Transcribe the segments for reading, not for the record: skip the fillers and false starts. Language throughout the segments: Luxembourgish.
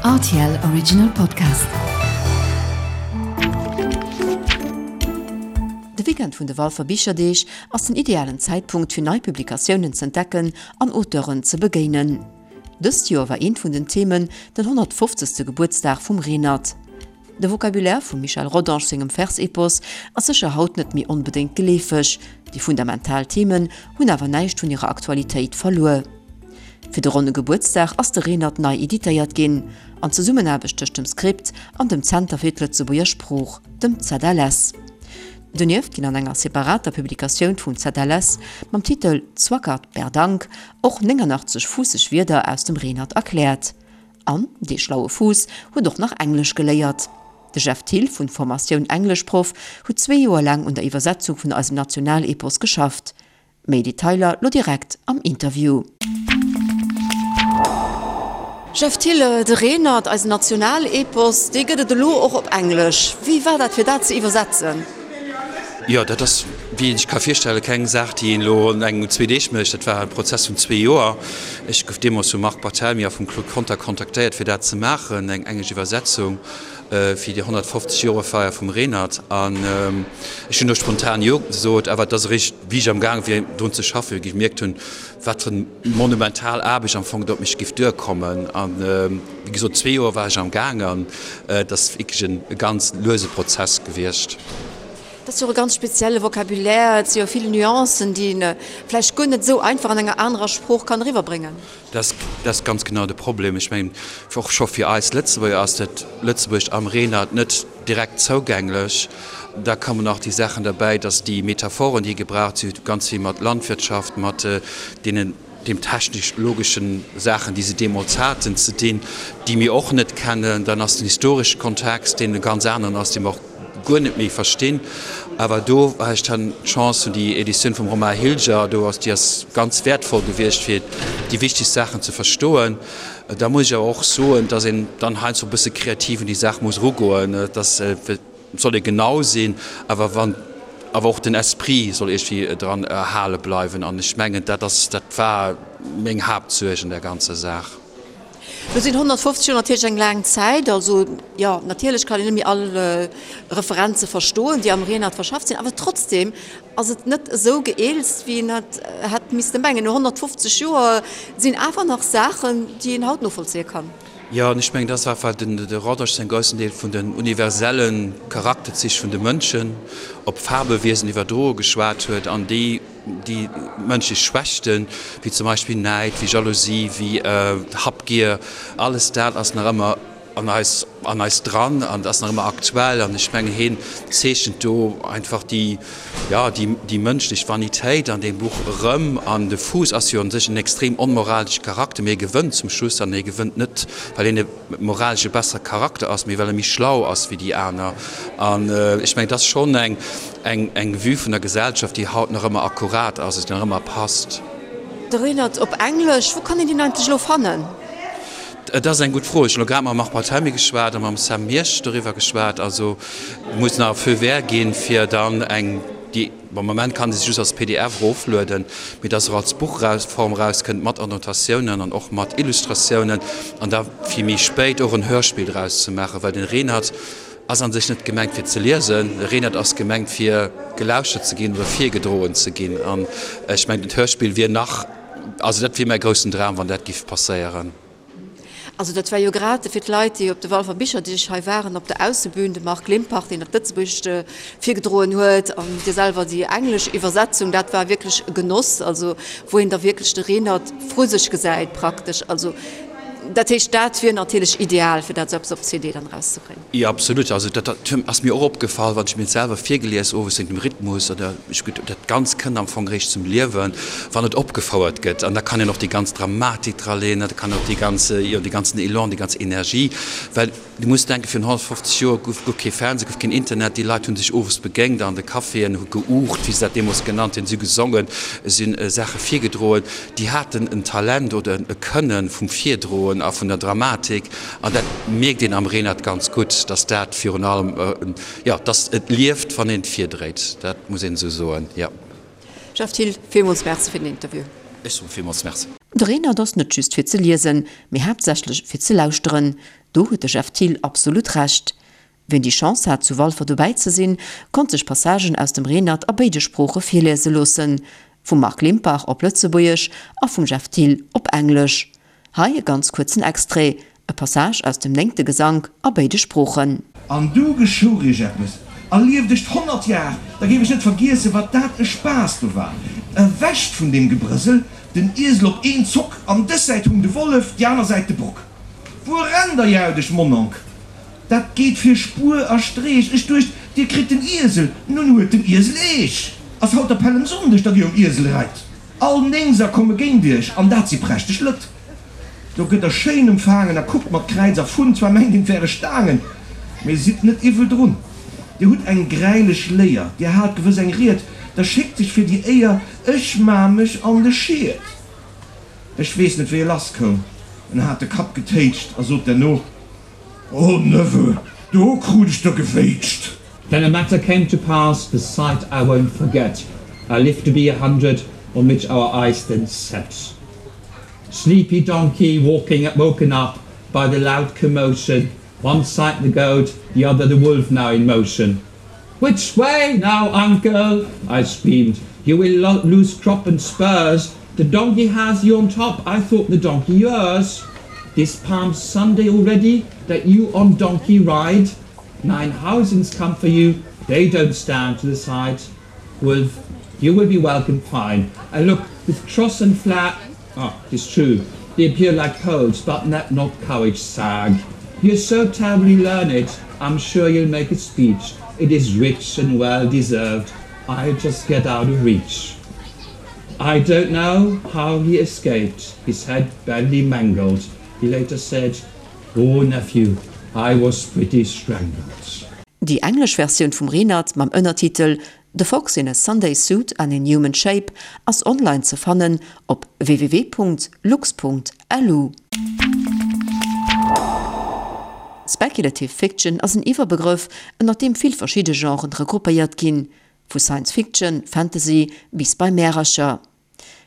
Rtl Original Podcast. De Weekend vun de Walfer Bicherdeeg ass den idealen Zäitpunkt fir nei Publikatiounen z'entdecken an Auteuren ze begéinen. Dëst Joer war eent vun den Themen den 150. Gebuertsdag vum Renert. De Vocabulaire vum Michel Rodange sengem Versepos ass sécher haut net méi onbedéngt geleefeg, déi fundamental Themen hunn awer näischt vun hirer Aktualitéit verluer. Fir de ronne Gebuertsdag ass de Renert nei editéiert ginn, an Zesummenaarbecht tëscht dem Script an dem Zenter fir d'Lëtzebuerger Sprooch, dem ZLS. Donieft ginn an enger separater Publikatioun vum ZLS mam Titel Zwackert Berdank och 89 fuusseg Wierder aus dem Renert erkläert. An dee schlaue Fuuss huet och nach Englesch geléiert. De Jeff Thill, vun Formatioun Engleschproff, huet zwee Joer laang un der Iwwersetzung vun eisem Nationalepos geschafft. Méi Detailer lo direkt am Interview. Jeff Thill, De Renert, eisen Nationalepos, dee gëtt et elo och op Englesch. Wéi war dat fir dat ze iwwersetzen? Jo, dat ass, wéi een sech ka virstellen, keng Saach, déi een elo an engem, zwee Deeg mécht. Dat war e Prozess vun zwee Joer. Ech gouf deemools vum Marc Barthelmy a vum Claude Conter kontaktéiert, fir dat ze maachen, eng englesch Iwwersetzung fir déi 150 Joerfeier vum Renert. An ech hunn do spontan Jo gesot, awer et ass eréischt, wéi ech amgaange wier, drun ze schaffen, gemierkt hunn, wat fir eng monumental Aarbecht am Fong do op mech géif duerkommen. An, wéi gesot, zwee Joer war ech amgaang an et ass wierklech e ganz luese Prozess gewiescht. Dat ass jo och e ganz spezielle Vocabulaire, et si jo vill Nuancen, déi een vläicht guer net esou einfach an enger anerer Sprooch kann eriwwerbréngen. Dat ass ganz genau de Problem. Ech mengen, och scho fir eis Lëtzebuerger ass dat Lëtzebuergescht am Renert net direkt zougänglech. Da kommen nach déi Saachen derbäi, datt déi Metaphoren, déi gebraucht si ganz vill mat Landwirtschaft, mat deenen, deem technisch-logeschen Saachen, déi se deemools haten, ze dinn, déi mir och net kennen. Dann ass den historesche Kontext, deen e ganz aneren ass, dee mer och guer net méi verstinn. Awer do war ech dann d'Chance hunn, déi Editioun vum Romain Hilger, do ass, déi ass ganz wäertvoll gewiescht, fir déi wichtegst Saachen ze verstoen. Da muss ech awer och soen, dass een dann heiansdo e bësse kreativ un déi Saach muss erugoen, dass et soll ee genau sinn, awer wann awer och den Esprit soll iergendwéi dran erhale bleiwen. An ech mengen, dat ass, dat war meng Haaptsuerg an där ganzer Saach. Lo sinn 150 Joer natierlech eng laang Zäit. Also, jo, natierlech kann een net méi all Referenze verstoen, déi am Renert verschafft sinn, awer trotzdem ass et net esou geeelzt, wéi een et hätt misste mengen. No 150 Joer sinn awer nach Saachen, déi een haut novollzéie kann. Jo, an ech mengen, dat ass einfach den de Rodange säin groussen Deel vun den universelle Charakterzich vun de Mënschen op Fabewiesen iwwerdroe geschwat huet an déi déi mënschlech Schwächten, wéi zum Beispill Näid, wéi Jalousie, wéi Habgier, alles dat ass nach ëmmer an eis an eis dran an ass nach ëmmer aktuell. An ech mengen, hien zeechent do einfach déi, jo, déi déi mënschlech Vanitéit an deem Buch erëm. An de Fuuss ass jo un sech en extrem onmoralesche Charakter, mee e gewënnt zum Schluss an hie gewënnt net, well hien e moralesch e bessere Charakter ass, mee well e méi schlau ass wéi déi aner. An ech mengen, et ass schonn eng eng eng Vue vun der Gesellschaft, déi haut nach ëmmer akkurat ass, déi nach ëmmer passt. De Renert op Englesch, wou kann een deen eigentlech elo fannen? Et ass eng gutt Fro. Ech hunn elo grad mam Marc Barthelmy geschwat a mam Sam Miersch doriwwer geschwat. Also et muss nach e Feu vert ginn, fir dann eng, déi, am Moment kann ee se just als pdf eroflueden, mee dass se och als Buchform erauskënnt, mat Annotatiounen an och mat Illustratiounen an da fir méi spéit och en Hörspill draus ze maachen, well den Renert ass an sech net gemengt fir ze liesen, de Renert ass gemengt fir gelauschtert ze ginn oder virgedroen ze ginn. An ech mengen, d'Hörspill wier nach, Also dat wier mäi groussen Dram, wann dat giff passéieren. Also dat war jo grad fir d'Leit, déi op de Walfer Bicherdeeg hei waren, op der Aussebühn, de Marc Limpach, deen dat Lëtzebuergescht virgedroen huet, an Dir selwer déi englesch Iwwersetzung, dat war wierklech e Genoss, also wou een da wierklech de Renert vru sech gesäit praktesch. Also dat heescht, dat wier natierlech ideal, fir dat esou eppes op CD dann erauszebréngen. Jo, absolut. Also dat ass mir och opgefall, wann ech mir et selwer virgelies owes wéint dem Rhythmus oder ech gutt, dat Ganzt kënnt am Fong eréischt zum Liewen, wann et opgefouert gëtt. An da kann een och déi ganz Dramatik draleen, da kann och déi ganz, jo, dee ganzen Elan, déi ganz Energie, well du muss denken, virun 150 Joer gouf guer kee Fernseh, gouf keen Internet, déi Leit hu sech owes begéint an de Caféen, hu geuucht, wéi se dat deemools genannt hunn, si hu gesongen, si hunn Saache virgedroen. Déi haten en Talent oder e Kënne vum Virdroen a vun der Dramatik. An dat mierkt een am Renert ganz gutt, dass dat virun allem, jo, dass et lieft, wann een et virdréit. Dat muss een esou soen, jo. Jeff Thill, villmools Merci fir den Interview. Ech soe villmools Merci. De Renert ass net just fir ze liesen, mee haaptsächlech fir ze lauschteren. Do huet de Jeff Thill absolut Recht. Wien déi Chance hat zu Walfer dobäi ze sinn, konnt sech Passagen aus dem Renert a béide Sprooche virliese loossen, vum Marc Limpach op Lëtzebuergesch a vum Jeff Thill op Englesch. Hei e ganz kuerzen Extrait, e Passage aus dem néngte Gesank a béide Sproochen. An du geschouch iech eppes, a lieft ech 100 Jar, da géif ech net vergiessen, wat dat e Spaass do war. Ewech vun deem Gebrësel, den Iesel op een Zock, an dës Säit hung de Wollef, déi aner Säit de Bock. Wuer rennt der, jaut ech, Monnonk? Dat geet fir Spuer a Streech. Ech duecht, dir kritt den Iesel, nun huet den Iesel eech. Ass haut der Pällemsonndeg, datt dir um Iesel reit? All Néngser komme géint iech, an dat si prächteg Lëtt. Do gëtt der schéin emfaangen a kuckt mat Kräiz a Funn. Zwar mengt een, 't wäre Staangen, mee sidd net iwwel drun. Dir hutt eng gräilech Léier, dir haalt gewëss eng Ried, da schéckt sech fir déi Éier, ech maa mech an de Schied. Ech weess net, wéi e lass koum, en hat de Kapp getéitscht a sot derno, O Neveu, do krut ech der gewéitscht! Then a matter came to pass, the sight I won't forget, I lived to be a hundred, on which our eyes then set. Sleepy donkey walking woken up by the loud commotion, One side the goat, the other the wolf now in motion. Which way now, uncle? I screamed. You will lo lose crop and spurs. The donkey has you on top. I thought the donkey yours. This Palm Sunday already that you on donkey ride. Nine housings come for you. They don't stand to the side. Wolf, you will be welcome fine. I look with cross and flat. Ah, it's true. They appear like poles, but let not courage sag. You're so terribly learned, I'm sure you'll make a speech. It is rich and well deserved. I'll just get out of reach. I don't know how he escaped, his head badly mangled. He later said, Oh nephew, I was pretty strangled. Déi englesch Versioun vum Renert mam Ënnertitel The Fox in a Sunday Suit and in Human Shape ass online ze fannen op www.lux.lu. Speculative Fiction ass en Iwwerbegrëff, ënner deem vill verschidde Genren regroupéiert ginn, vu Science Fiction, Fantasy bis bei Märercher.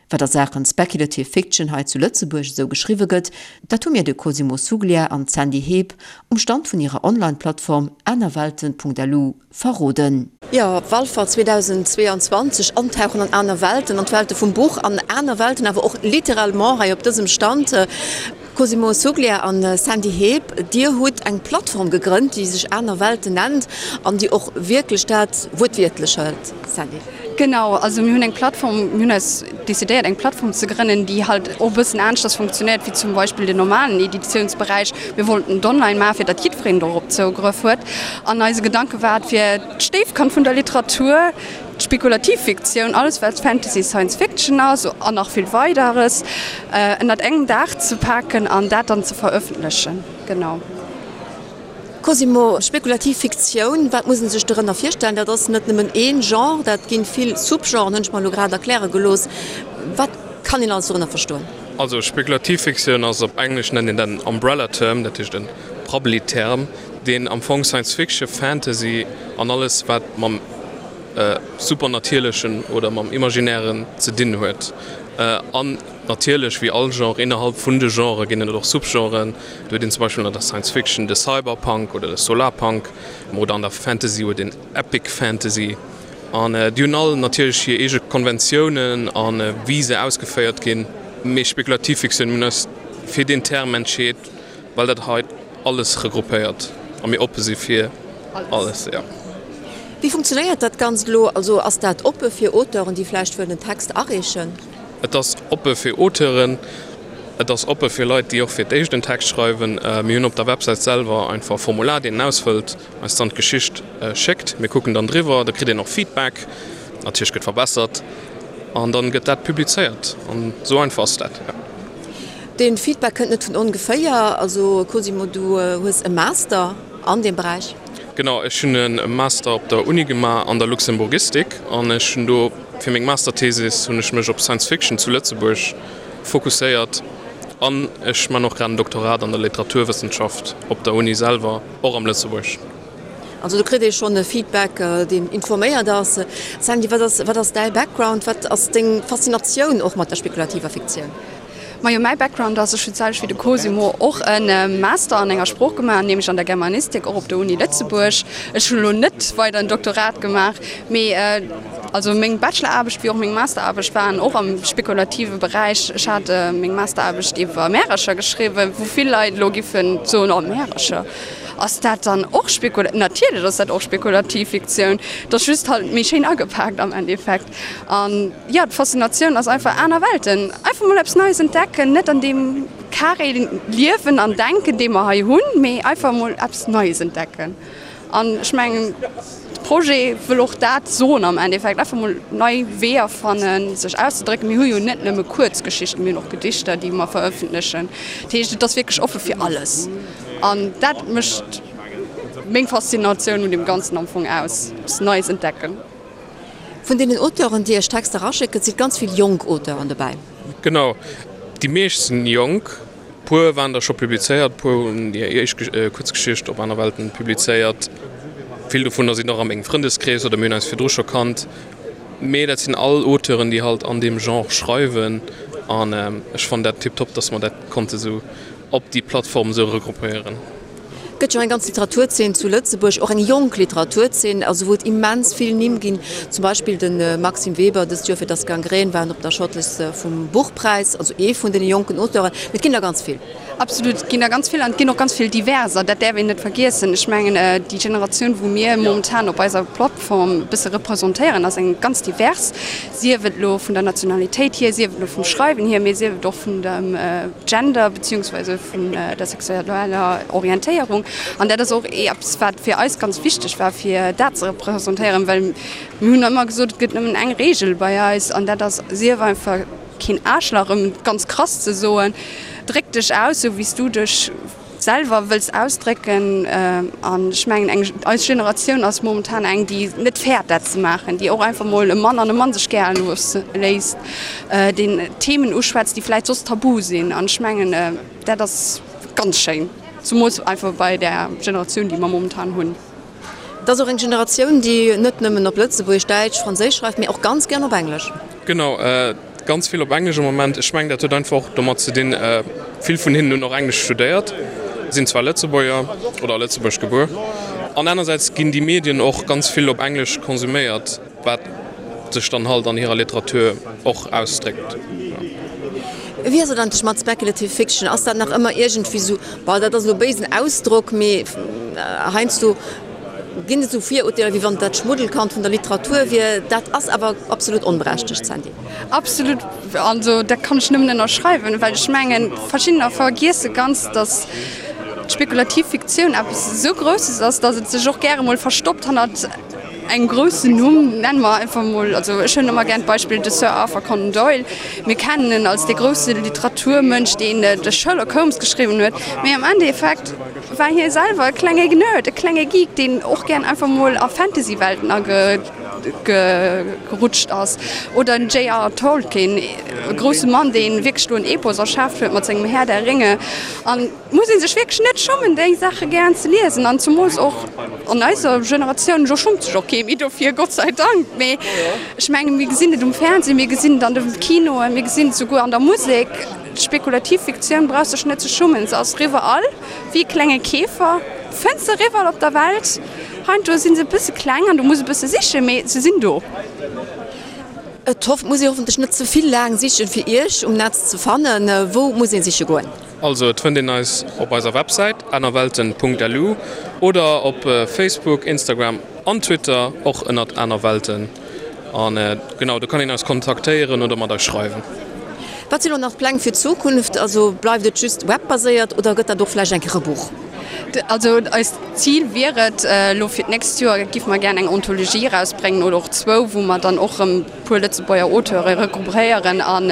Wat a Saachen Speculative Fiction hei zu Lëtzebuerg esou geschriwwe gëtt, dat hu mir de Cosimo Suglia an d'Sandy Heep um Stand vun hirer Online-Plattform anerwelten.lu verroden. Jo, Walfer 2022, Antauchen an aner Welten, an d'Welte vum Buch, an aner Welten awer och littéralement hei op dësem Stand. Cosimo Suglia an Sandy Heep, dir hutt eng Plattform gegrënnt, déi sech Aner Welten nennt an déi och wierklech dat wuertwiertlech hëlt, Sandy. Genau, also mir hunn eng Plattform, mir hunn eis decidéiert eng Plattform ze grënnen, déi halt och e bëssen aneschters funktionéiert wéi zum Beispill den normalen Editiounsberäich. Mir wollten et online maachen, fir datt jiddwereen dorop Zougrëff huet. An eise Gedanke war et, fir d'Stéifkand vun der Literatur, D'Spekulativ Fiktioun, alles wat Fantasy, Science Fiction ass an nach vill Weideres, ënnert engem Daach ze paken an dat dann ze verëffentlechen. Genau. Cosimo, Spekulativ Fiktioun, wat muss een sech dorënner virstellen? Dat ass net nëmmen een Genre, dat ginn vill Sub-Genren, hunn ech mer elo grad erkläre gelooss. Wat kann een alles dorënner verstoen? Also Spekulativ Fiktioun ass, op Englesch nennt een dat en Umbrella Term, dat heescht e Prabbeli-Term, deen am Fong Science Fiction, Fantasy an alles wat mam Supernatierlechen oder mam Imaginären ze dinn huet. An natierlech, wéi all Genre, innerhalb vun de Genrë ginn et och Subgenren. Do huet een zum Beispill an der Science Fiction de Cyberpunk oder de Solarpunk oder an der Fantasy huet een Epic Fantasy. An déi hunn all natierlech hir eege Konventiounen a wéi se ausgeféiert ginn. Mee spekulativ Fiktioun, mir hunn eis fir deen Term entscheet, well dat hei alles regroupéiert a mir oppe si fir alles, jo. Wéi funktionéiert dat Ganzt elo? Also ass dat oppe fir Auteuren, déi vläicht wëllen en Text areechen? Et ass oppe fir Auteuren, et ass oppe fir Leit, déi och fir d'éischt en Text schreiwen. Mir hunn op der Websäit selwer einfach e Formular, deen een ausfëllt, eis dann d'Geschicht schéckt. Mir kucken dann driwwer, da kritt een och Feedback, natierlech gëtt verbessert an dann gëtt dat publizéiert. An esou einfach ass dat, jo. Dee Feedback kënnt net vun ongeféier. Also Cosimo, du hues e Master an deem Beräich. Genau, ech hunn e Master op der Uni gemaach an der Luxemburgistik an ech hunn do fir meng Masterthesis hunn ech mech op Science Fiction zu Lëtzebuerg fokusséiert an ech man och grad en Doktorat an der Literaturwëssenschaft op der Uni selwer, och am Lëtzebuerg. Also do kritt ee schonn e Feedback, deen informéiert ass. Sandy, wat ass, wat ass däi Background, wat ass deng Faszinatioun och mat der spekulativer Fiktioun? Majo, mäi Background ass, ech hunn d'selwecht wéi de Cosimo och e Master an enger Sprooch gemaach, nämlech an der Germanistik, och op der Uni Lëtzebuerg. Ech hunn elo net weider en Doktorat gemaach, mee also meng Bacheloraarbecht wéi och meng Masteraarbecht waren och am spekulative Beräich. Ech hat meng Masteraarbecht iwwer Märercher geschriwwen, wou vill Leit elo giffen soen, oh Märercher, ass dat dann och spekula-? Natierlech ass dat och spekulativ Fiktioun, et ass just halt méi schéin agepaakt am Endeffekt. An jo, d'Faszinatioun ass einfach aner Welten, einfach mol eppes Neies entdecken, net an deem Carré liewen an denken, dee mer hei hunn, mee einfach mol eppes Neies entdecken. An ech mengen, de Projet wëll och dat soen am Endeffekt, einfach mol nei Weeër fannen, sech auszedrécken. Mir hu jo net nëmme Kuerzgeschichten, mir hunn och Gedichter, déi mer verëffentlechen. Dat heescht, et ass wierklech offe fir alles. An dat mécht meng Faszinatioun un deem Ganzen am Fong aus, eppes Neies entdecken. Vun deenen Auteuren, déi Iech Texter eraschécken, si ganz vill jonk Auteuren dobäi. Genau, déi meescht sinn jonk. Puer waren der scho publizéiert, puer hunn hir éischt Kuerzgeschicht op Aner Welten publizéiert. Vill dovunner sinn och a mengem Frëndeskrees oder mir hunn eis virdru scho kannt. Mee dat sinn all Auteuren, déi halt an deem Genre schreiwen an ech fannen dat tiptop, dass mer dat konnte sou op déi Plattform esou regroupéieren. Et gëtt jo eng ganz Literaturzeen zu Lëtzebuerg, och eng jonk Literaturzeen, also wou et immens vill Nimm ginn, zum Beispill de Maxime Weber, dëst Joer fir Das Gangrän war en op der Shortlist vum Buchpräis, also ee vun deene jonken Auteuren, mee et ginn der ganz vill. Absolut, et ginn der ganz vill an et ginn och ganz vill diverser, dat däerf een net vergiessen. Ech mengen, déi Generatioun, wou mir momentan op eiser Plattform e bësse representéieren, ass eng ganz divers, sief et elo vun der Nationalitéit hier, sief et elo vum Schreiwen hier, mee sief et och vun dem Gender beziehungsweise vun der sexueller Orientéierung. An dat ass och eppes, wat fir eis ganz wichteg war, fir dat ze representéieren, well mir hunn ëmmer gesot, et gëtt nëmmen eng Reegel bei eis an dat ass, Sief einfach keen Aarschlach, ëm et ganz krass ze soen, dréck dech aus, esou wéi s du dech selwer wëlls ausdrécken. An ech mengen, eng, eis Generatioun ass momentan eng, déi net fäert, dat ze maachen, déi och einfach mol e Mann an e Mann sech gär looss, léisst, deen Themen uschwätzt, déi vläicht soss tabu sinn. An ech mengen, dat ass ganz schéin, zumools einfach bei där Generatioun, déi mer momentan hunn. Et ass och eng Generatioun, déi net nëmmen op Lëtzebuergesch, Däitsch, Franséisch schreift, mee och ganz gären op Englesch. Genau, ganz vill op Englesch am Moment. Ech mengen, dat huet einfach och domat ze dinn, vill vun hinnen hunn och Englesch studéiert, sinn zwar Lëtzebuerger oder a Lëtzebuerg gebuer, an anersäits ginn déi Medien och ganz vill op Englesch konsuméiert. Wat sech dann halt an hirer Literatur och ausdréckt. Wéi ass et eigentlech mat Speculative Fiction? Ass dat nach ëmmer iergendwéi sou, bon, dat ass elo e béisen Ausdrock, mee heiansdo ginn et esou Virurteeler, wéi wann et dat Schmuddelkand vun der Literatur wier. Dat ass awer absolut onberechtegt, Sandy. Absolut, also dat kann ech nëmmen ënnerschreiwen, well ech mengen, verschiddener vergiesse ganz, datt d'spekulativ Fiktioun eppes esou Grousses ass, datt et sech och gäre mol verstoppt hannert Engem groussen Numm, nenne mer einfach mol, also ech huelen ëmmer gär d'Beispill de Sir Arthur Conan Doyle. Mir kennen en als dee grousse Literaturmënsch, deen de Sherlock Holmes geschriwwen huet, mee am Endeffekt war hie selwer e klenge Nerd, e klenge Geek, deen och gären einfach mol a Fantasy-Welten agerutscht ass. Oder den JR. Tolkien, e grousse Mann, dee wierklech do en Epos erschaaft huet mat sengem Herr der Ringe. An muss ee sech wierklech net schummen déi Saache gären ze liesen an zumools och an eiser Generatioun, elo schummt sech och kee méi dofir, Gott sei Dank, mee ech menge mir gesinn et um Fernseh, mir gesinn et an de Kinoen, mir gesinn et souguer an der Musek, d'spekulativ Fiktioun brauch sech net ze schummen, se ass riwwerall, wéi e klenge Käfer fënns se riwwerall op der Welt. Heiansdo si se e bësse kleng an du muss e bësse sichen, mee se sinn do. Et muss ee hoffentlech net ze vill laang sichen, fir Iech um Netz ze fannen. Wou muss ee siche goen? Also et fënnt een eis op eiser Websäit anerwelten.lu oder op Facebook, Instagram an Twitter och ënnert anerwelten. An genau do kann een eis kontaktéieren oder mat eis schreiwen. Wat sinn elo nach d'Pläng fir d'Zukunft? Also bleift et just webbaséiert oder gëtt dat och vläicht eng Kéier e Buch? Also eist Zil wier et elo fir d'nächst Joer géife mer gären eng Anthologie erausbréngen oder och zwou, wou mer dann och erëm puer Lëtzebuerger Auteure regruppéieren an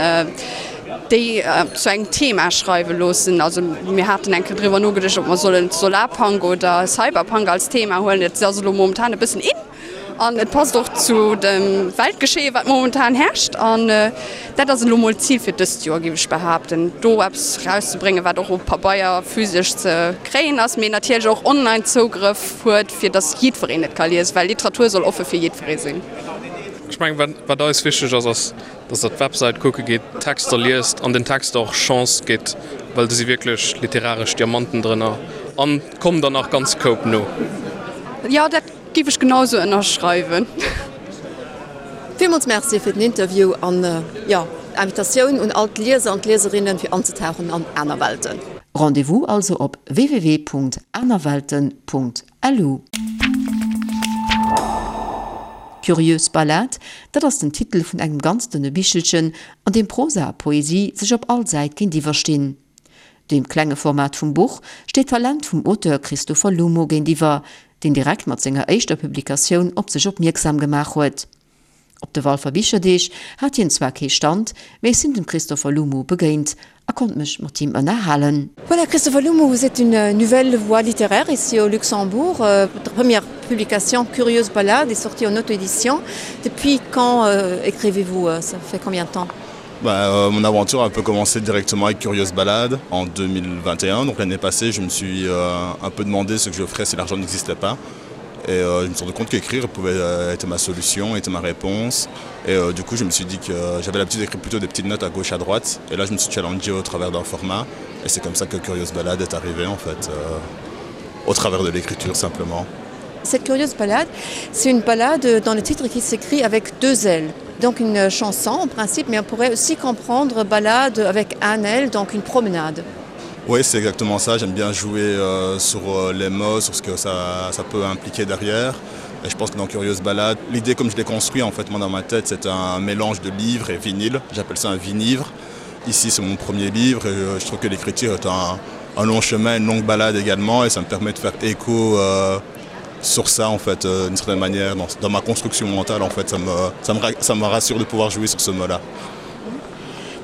déi zu engem Thema schreiwe loossen. Also mir haten eng Kéier driwwer nogeduecht, ob mer sollen Solarpunk oder Cyberpunk als Thema huelen. Et ass elo momentan e bëssen in an et passt och zu dem Weltgeschehen, wat momentan herrscht. An dat ass elo mol d'Zil fir dëst Joer, géif ech behaapten, do eppes erauszebréngen, wat och op Pabeier physesch ze kréien ass, mee natierlech och online Zougrëff huet, fir datt jiddwereen et ka liesen, well Literatur soll offe fir jiddweree sinn. Ech mengen, wat, wat eis wichteg ass, ass, dass Der d'Websäit kucke gitt, d'Texter liest an den Texter och Chance gitt, well do si wierklech literaresch Diamanten drënner an kommen der nach ganz Koup no. Jo, dat géif ech genau sou ënnerschreiwen. Villmools Merci fir den Interview an, jo, Invitatioun un all d'Lieser an d'Lieserinnen fir anzetauchen an aner Welten. Rendez-vous also op www.anerwelten.lu. Curieuse Ballade, dat ass den Titel vun engem ganz dënne Bichelchen, an deem Prosa a Poesie sech op all Säit géintiwwer stinn. Deem klenge Format vum Buch steet d'Talent vum Auteur Christopher Lumo géintiwwer, deen direkt mat senger éischter Publikatioun op sech opmierksam gemaach huet. Op de Walfer Bicherdeeg hat hien zwar kee Stand, mee ech sinn dem Christopher Lumo begéint a konnt mech mat him ënnerhalen. Voilà Christopher Lumo, vous êtes une nouvelle voix littéraire ici au Luxembourg. Votre première publication Curieuse Ballade est sortie en auto-édition. Depuis quand écrivez-vous? Ça fait combien de temps? Bah, euh, mon aventure a un peu commencé directement avec Curieuse Balade en 2021. Donc l'année passée, je me suis euh, un peu demandé ce que je ferais si l'argent n'existait pas. Et euh, je me suis rendu compte qu'écrire pouvait euh, être ma solution, être ma réponse. Et euh, du coup, je me suis dit que euh, j'avais l'habitude d'écrire plutôt des petites notes à gauche, à droite. Et là, je me suis challengé au travers d'un format. Et c'est comme ça que Curieuse Balade est arrivée, en fait, euh, au travers de l'écriture, simplement. Cette Curieuse Balade, c'est une balade dans le titre qui s'écrit avec deux ailes. Donc une chanson en principe, mais on pourrait aussi comprendre balade avec un aile, donc une promenade. Oui, c'est exactement ça. J'aime bien jouer euh, sur euh, les mots, sur ce que ça, ça peut impliquer derrière. Et je pense que dans Curieuse Balade, l'idée comme je l'ai construit en fait moi dans ma tête, c'est un mélange de livres et vinyle. J'appelle ça un vinivre. Ici, c'est mon premier livre et euh, je trouve que l'écriture est un, un long chemin, une longue balade également et ça me permet de faire écho euh, sur ça en fait euh, d'une certaine manière dans, dans ma construction mentale en fait ça me, ça me, ça me rassure de pouvoir jouer sur ce mot là.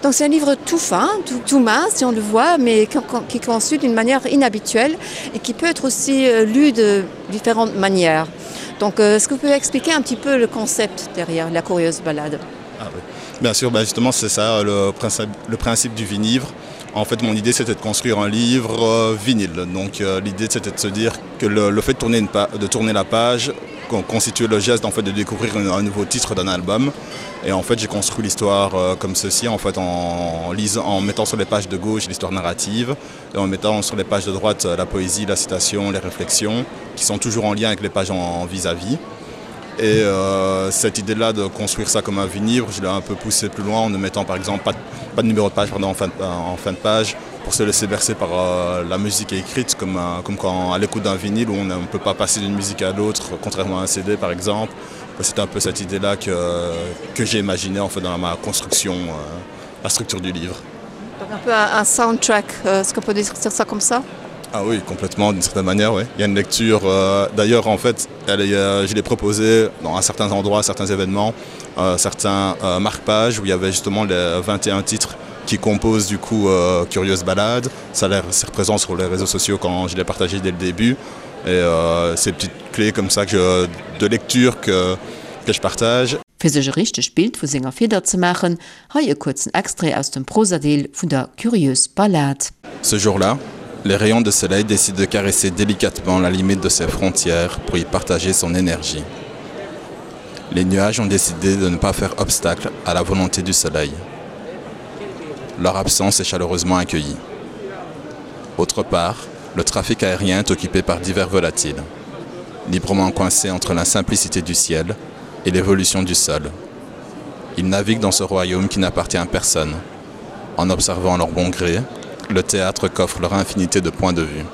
Donc c'est un livre tout fin, tout, tout mince si on le voit, mais qui est conçu d'une manière inhabituelle et qui peut être aussi euh, lu de différentes manières. Donc euh, est-ce que vous pouvez expliquer un petit peu le concept derrière la curieuse balade ah, oui. Bien sûr, ben justement c'est ça le principe, le principe du vinivre. En fait mon idée c'était de construire un livre euh, vinyle. Donc euh, l'idée c'était de se dire que le, le fait de tourner, une de tourner la page constituait le geste en fait de découvrir un, un nouveau titre d'un album. Et en fait j'ai construit l'histoire euh, comme ceci en fait en, lisant, en mettant sur les pages de gauche l'histoire narrative et en mettant sur les pages de droite euh, la poésie, la citation, les réflexions qui sont toujours en lien avec les pages en vis-à-vis. -vis. Et euh, cette idée là de construire ça comme un vinyle, je l'ai un peu poussé plus loin en ne mettant par exemple pas de, pas de numéro de page pardon, en, fin de, en fin de page pour se laisser bercer par euh, la musique écrite comme, un, comme quand à l'écoute d'un vinyle où on ne peut pas passer d'une musique à l'autre contrairement à un CD par exemple. C'est un peu cette idée là que, que j'ai imaginé en fait dans ma construction euh, la structure du livre. Donc un peu un, un soundtrack, euh, est-ce qu'on peut dire ça comme ça Ah oui, complètement d'une certaine manière oui. Il y a une lecture euh, d'ailleurs en fait elle est, euh, je l'ai proposé dans un certains endroits, certains événements, euh, certains euh, marque-pages où il y avait justement les 21 titres qui composent du coup euh, Curieuse Balade. Ça l'air présent sur les réseaux sociaux quand je l'ai partagé dès le début et euh, ces petites clés comme ça que de lecture que, que je partage. Fir sech e richtegt Bild vu senger Fieder ze maachen, hei e kuerzen Extrait aus dem Prosadeel vun der Curieuse Ballade. Ce jour-là, les rayons de soleil décident de caresser délicatement la limite de ses frontières pour y partager son énergie. Les nuages ont décidé de ne pas faire obstacle à la volonté du soleil. Leur absence est chaleureusement accueillie. Autre part, le trafic aérien est occupé par divers volatiles, librement coincés entre la simplicité du ciel et l'évolution du sol. Ils naviguent dans ce royaume qui n'appartient à personne. En observant leur bon gré, le théâtre coffre leur infinité de points de vue.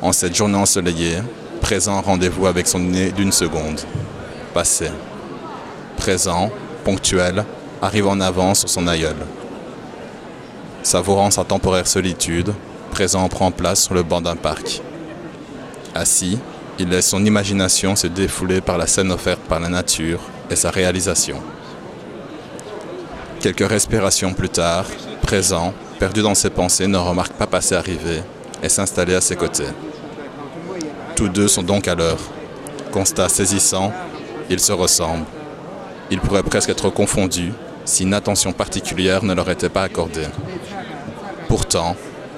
En cette journée ensoleillée, présent rendez-vous avec son nez d'une seconde. Passé. Présent, ponctuel, arrive en avance sur son aïeul. Savourant sa temporaire solitude, présent prend place sur le banc d'un parc. Assis, il laisse son imagination se défouler par la scène offerte par la nature et sa réalisation. Quelques respirations plus tard, présent, perdu dans ses pensées, ne remarque pas passer arriver et s'installer à ses côtés. Tous deux sont donc à l'heure. Constat saisissant, ils se ressemblent. Ils pourraient presque être confondus si une attention particulière ne leur était pas accordée. Pourtant,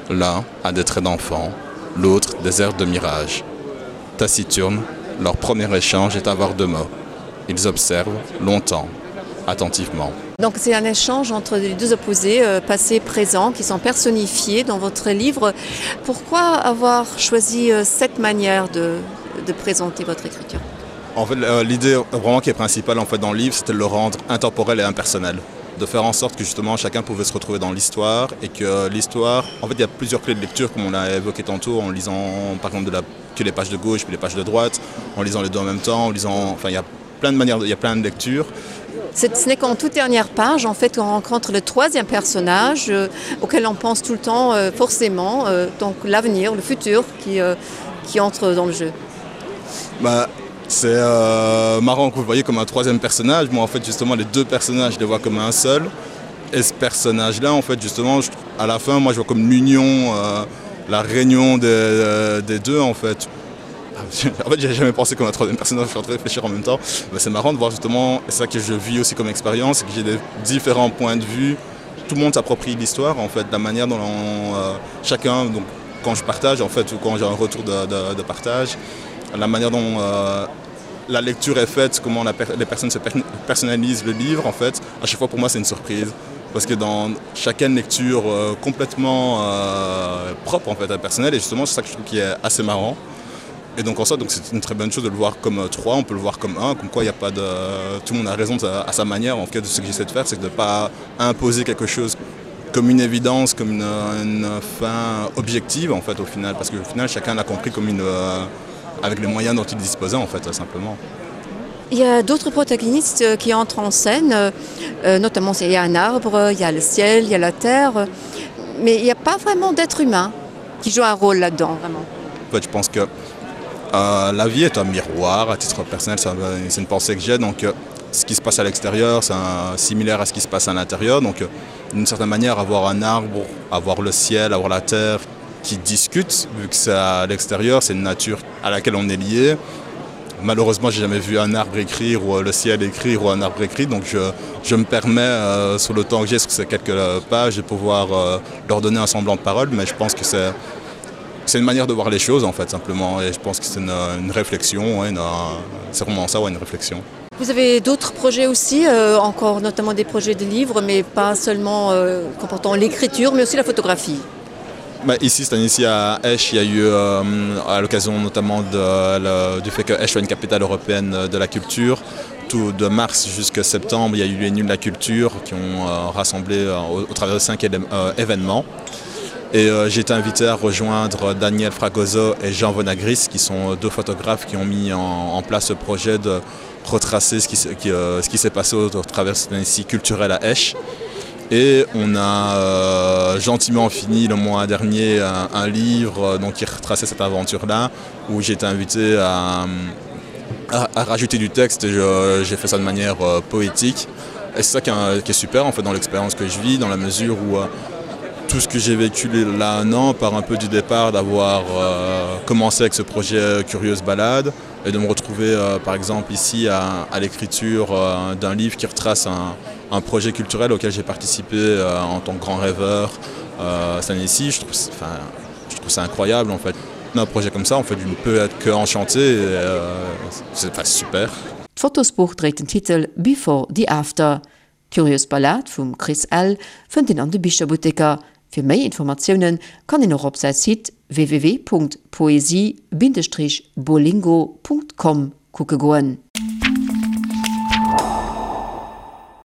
l'un a des traits d'enfant, l'autre des airs de mirage. Taciturne, leur premier échange est avoir de mots. Ils observent longtemps, attentivement. Donc c'est un échange entre les deux opposés, euh, passé et présent, qui sont personnifiés dans votre livre. Pourquoi avoir choisi euh, cette manière de, de présenter votre écriture En fait, euh, l'idée vraiment qui est principale en fait, dans le livre, c'était de le rendre intemporel et impersonnel de faire en sorte que justement chacun pouvait se retrouver dans l'histoire et que l'histoire en fait il y a plusieurs clés de lecture comme on l'a évoqué tantôt en lisant par exemple de la que les pages de gauche puis les pages de droite en lisant les deux en même temps en lisant enfin il y a plein de manières il y a plein de lectures Ce n'est qu'en toute dernière page en fait on rencontre le troisième personnage euh, auquel on pense tout le temps euh, forcément euh, donc l'avenir le futur qui, euh, qui entre dans le jeu. Bah, c'est euh, marrant que vous voyez comme un troisième personnage moi en fait justement les deux personnages je les vois comme un seul et ce personnage là en fait justement je, à la fin moi je vois comme l'union euh, la réunion des, euh, des deux en fait en fait j'ai jamais pensé qu'on a troisième personnage je suis en train de réfléchir en même temps c'est marrant de voir justement ça que je vis aussi comme expérience que j'ai des différents points de vue tout le monde s'approprie l'histoire en fait la manière dont on, euh, chacun donc quand je partage en fait ou quand j'ai un retour de, de, de partage la manière dont euh, la lecture est faite comment la per les personnes se per personnalisent le livre en fait à chaque fois pour moi c'est une surprise parce que dans chacune lecture euh, complètement euh, propre en fait à personnel et justement c'est ça que je trouve qui est assez marrant et donc en soi donc c'est une très bonne chose de le voir comme euh, trois on peut le voir comme un comme quoi il n'y a pas de tout le monde a raison de, à sa manière en tout cas de ce que j'essaie de faire c'est de pas imposer quelque chose comme une évidence comme une, une fin objective en fait au final parce qu'au final chacun l'a compris comme une euh, avec les moyens dont il disposait en fait simplement. Il y a d'autres protagonistes euh, qui entrent en scène, euh, euh, notamment il y a un arbre, il y a le ciel, il y a la terre, mais il n'y a pas vraiment d'être humain qui joue un rôle là-dedans vraiment. En fait, je pense que euh, la vie est un miroir à titre personnel, c'est une pensée que j'ai donc euh, ce qui se passe à l'extérieur, c'est similaire à ce qui se passe à l'intérieur donc euh, d'une certaine manière avoir un arbre, avoir le ciel, avoir la terre qui discute vu que c'est à l'extérieur, c'est une nature à laquelle on est lié. Malheureusement, j'ai jamais vu un arbre écrire ou euh, le ciel écrire ou un arbre écrit, donc je, je me permets euh, sur le temps que j'ai sur ces quelques euh, pages de pouvoir euh, leur donner un semblant de parole, mais je pense que c'est c'est une manière de voir les choses en fait simplement et je pense que c'est une, une réflexion c'est vraiment ça ouais, une réflexion. Vous avez d'autres projets aussi euh, encore notamment des projets de livres mais pas seulement euh, comportant l'écriture mais aussi la photographie. Bah, ici cette année-ci à Esch, il y a eu euh, à l'occasion notamment de, le, du fait que Esch soit une capitale européenne de la culture. Tout de mars jusqu'à septembre, il y a eu les nuls de la culture qui ont euh, rassemblé euh, au, au travers de cinq euh, événements. Et euh, j'ai été invité à rejoindre Daniel Fragoso et Jean Vonagris, qui sont deux photographes qui ont mis en, en place ce projet de retracer ce qui, qui, euh, ce qui s'est passé au, au travers de cette année-ci culturelle à Esch. Et on a euh, gentiment fini le mois dernier un, un livre euh, donc, qui retraçait cette aventure-là, où j'ai été invité à, à, à rajouter du texte et j'ai fait ça de manière euh, poétique. Et c'est ça qui est, qui est super en fait dans l'expérience que je vis, dans la mesure où euh, tout ce que j'ai vécu là un an part un peu du départ d'avoir euh, commencé avec ce projet Curieuse Balade et de me retrouver euh, par exemple ici à, à l'écriture euh, d'un livre qui retrace un, un projet culturel auquel j'ai participé euh, en tant que grand rêveur euh, cette année-ci je trouve enfin je trouve ça incroyable en fait un projet comme ça en fait je ne peux être que enchanté euh, c'est pas super. D'Fotosbuch dréit den Titel Before the After. D'Curious Ballade vum Chris Ell fënnt een an de Bicherbutteker. Fir méi Informatioune kann een och op säi Site www.poesie-bolingo.com kucke goen.